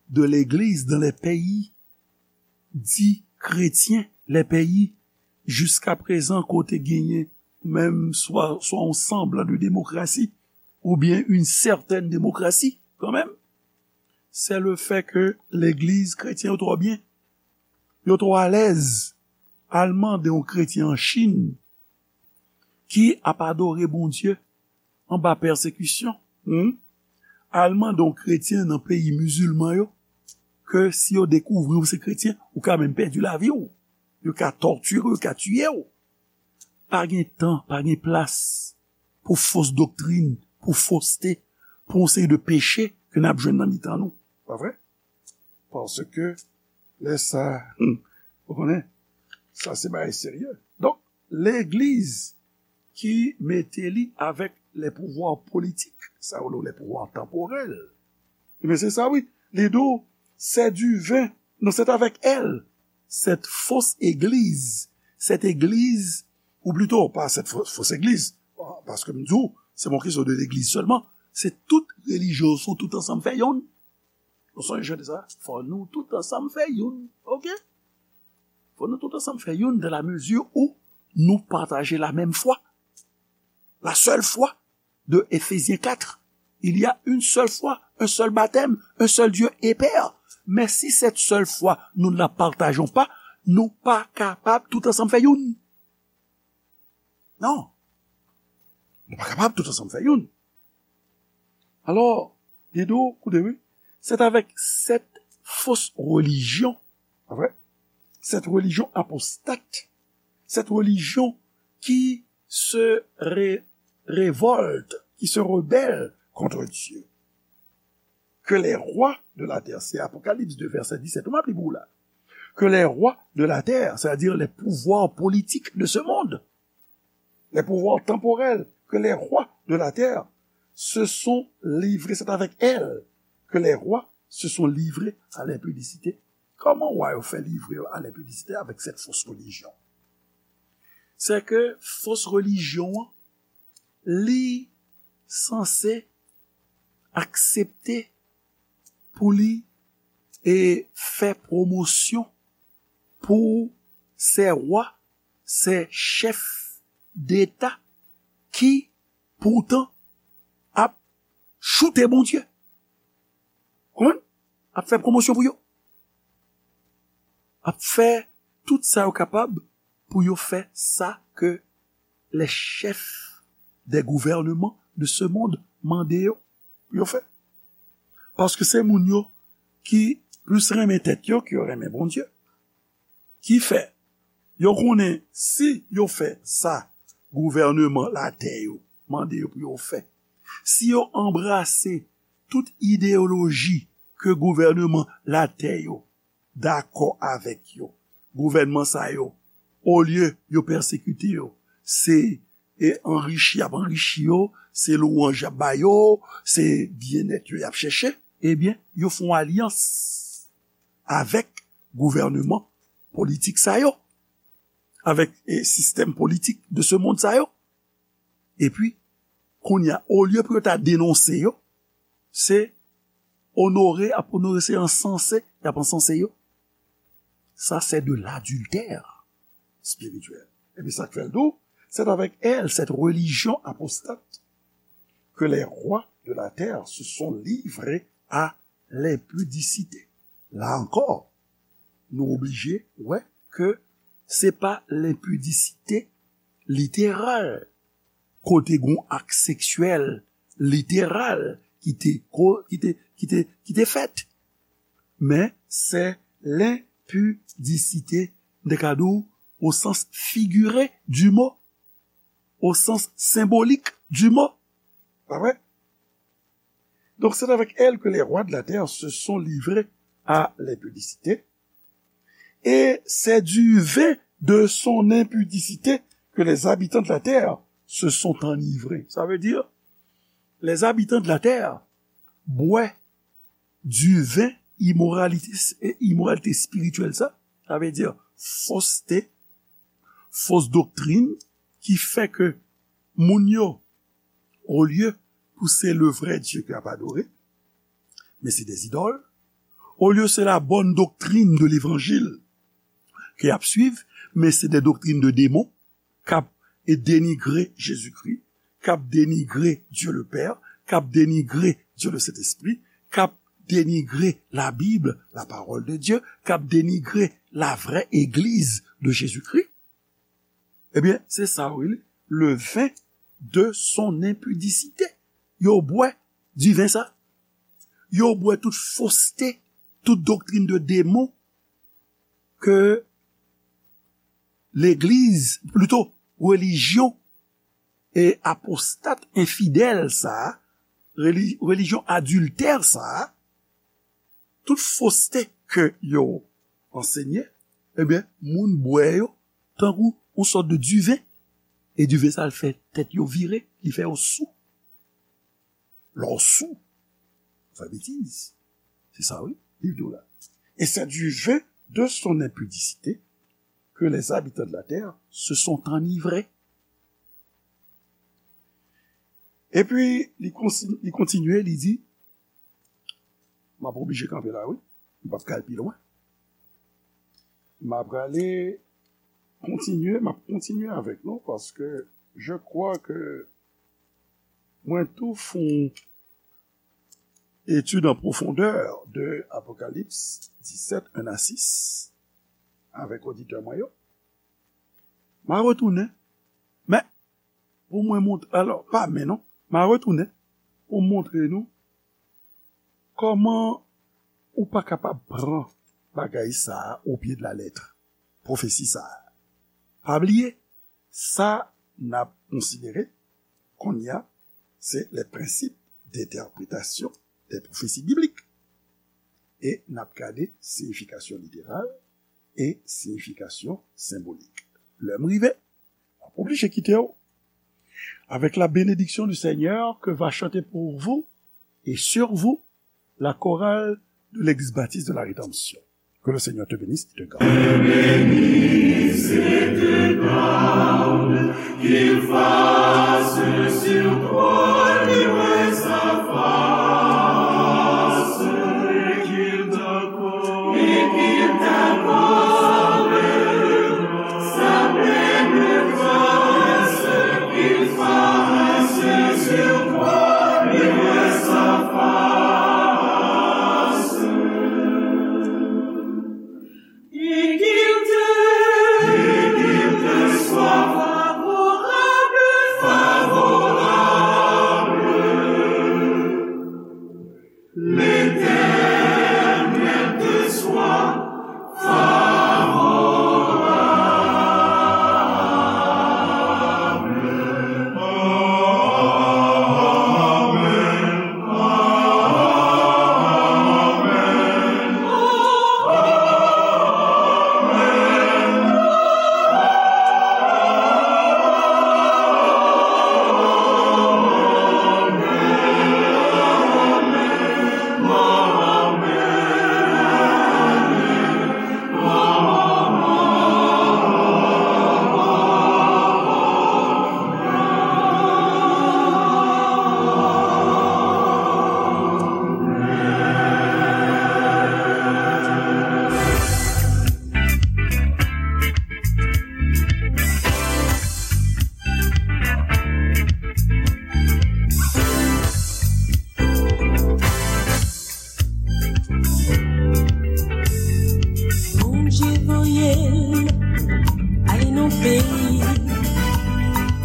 de l'église dans les pays dits chrétiens, les pays jiska prezan kote genyen menm swa, swa yon semblan de démocratie, oubyen une certaine démocratie, kanmenm, c'est le fait que legliz kretyen yo twò byen. Yo twò alèz al mande yon kretyen an Chin ki ap adore Bondye anba pèsekisyon, hmm? Al mande yon kretyen nan peyi mizilman yo ke si yo dekouvri w se kretyen, ou ka menm pèdi lavi w. Yo ka tòtire w, yo ka tiye w. Pa gen tan, pa gen plas pou fos doktrin, pou foste, pou yon seri de peche ke n ap jwenn nan mitan nou. Pa vre? Paske lè sa, hmm, ou konnen, sa se bagay serye. Donk, legliz ki mete li avèk les pouvoirs politiques, sa yo rele les pouvoirs temporels. Ebyen, se sa, wi. Li di w, c'est du vin. Non, c'est avec elle. Cette fausse église. Cette église, ou plito, pa cette fausse, fausse église. Paske m di w, se pa yon kesyon de legliz sèlman. Se tout relijyon, sou tout ansanm fè yonn. Nou sonje de sa? Fò nou tout ansanm fè youn. Oke? Fò nou tout ansanm fè youn dans la mesure où nous partageons la même foi. La seule foi de Éphésiens quatre. Il y a une seule foi, un seul baptême, un seul Dieu et Père. Mais si cette seule foi, nous ne la partageons pas, nou pa kapab tout ansanm fè youn. Non. Nou pa kapab tout ansanm fè youn. Alò, li di w, koute, wi, c'est avec cette fausse religion, pa vre? Cette religion apostate, cette religion qui se ré-, révolte, qui se rebelle contre Dieu, que les rois de la terre, c'est Apocalypse deux, verset dix-sept, ou m ap li pou w la, que les rois de la terre, c'est-à-dire les pouvoirs politiques de ce monde, les pouvoirs temporels, que les rois de la terre se sont livrés, c'est avec elle que les rois se sont livrés à l'impudicité. Kòman wa yo fè livre yo à l'impudicité avec cette fausse religion? Se ke fos relijyon an, li sanse aksepte pou li e fè pwomosyon pou se wa, se chèf deta ki poutan ap choute Bondye. Konprann? Ap fè pwomosyon pou yo. Ap fè tout sa yo kapab pou yo fè sa ke les chefs des gouvernements de ce monde mande yo pou yo fè. Paske se moun yo ki plis renmen tèt yo ke yo renmen Bondye. Ki fè, yo konnen si yo fè sa gouvèneman latè yo mande yo pou yo fè, si yo anbrase tout ideyoloji ke gouvèneman latè yo dakò avèk yo, gouvènman sa yo, olye yo pèsekite yo, se e anrichi y ap anrichi yo, se lwanj y ap ba yo, se byennèt yo y ap chèche, ebyen, yo fè yon alyans avèk gouvèneman politik sa yo, avèk e sistèm politik de ce monde sa yo. Epi, kounye a, olye pou yo ta denonse yo, se onore, ap onore, se ansanse, y ap ansanse yo. Sa, c'est de l'adultère spirituel. Epi sa k fè l di w, c'est avec elle, cette religion apostate, que les rois de la terre se sont livrés à lenpidisite. La ankò, nou oblije wè ke se pa lenpidisite literal, kote gen yon ak seksyèl literal ki te, ko- ki te, ki te, ki te fèt. Men se lenpidisite, m te ka di w, au sens figuré du mot, au sens symbolique du mot. Pa vre? Donc c'est avec elle que les rois de la terre se sont livrés à l'impudicité, et c'est du vin de son impudicité que les habitants de la terre se sont enivrés. Ça veut dire, les habitants de la terre boivent du vin imoralité, imoralité spirituelle, sa, sa vle di foste, fos doktrin ki fè ke moun yo, olye pou se le vrai Dieu ki ap adore, men se des idoles. Olye se la bonne doctrine de l'évangile ki ap suiv, men se des doctrines de démons, k ap e denigre Jezikri, k ap denigre Dieu le Père, k ap denigre Dieu le Saint-Esprit, k ap denigre la Bible, la parole de Dieu, k ap denigre la vraie église de Jésus-Christ. Ebyen, se sa wi, le vin de son impudicité. Yo bwè diven sa. Yo bwè tout foste, tout doktrin de demon ke legliz, plito, relijyon e apostat, enfidèl sa a, reli- relijyon adiltè sa a, tout foste ke yo ansenye, ebyen, moun bwè yo tankou yon sòt de diven. E diven sa, l fè tèt yo vire, li fè yo sou. Lè w sou, ou fè betiz. Se sa, wi, li di w la. Et c'est du vin de son impudicité que les habitants de la terre se sont enivrés. Epi, li konsi- li kontinye, li di, m ap oblije kanpe la, wi. M p ap ka al pi lwen. M ap prale kontinye, m ap kontinye avèk nou, paske je crois que mwen tou fè yon étude en profondeur de Apocalypse dix-sept, un à six, avèk oditè mwen yo. M a retounen, men pou mwen montre, alò, pa men non, m a retounen pou montre nou kòman ou pa kapab pran bagay sa a au pied de la lettre, pwofesi sa a. Pa bliye, sa n ap konsidere kounye a, se les principes d'interprétation des prophéties bibliques. E n ap gade siyifikasyon literal e siyifikasyon senbolik. Lè m rive, m ap oblije kite w avec la bénédiction du Seigneur que va chanter pour vous et sur vous la chorale de l'Église baptiste de la Rédemption. Que le Seigneur te bénisse et te garde. Bénisse et te garde, qu'il fasse sur toi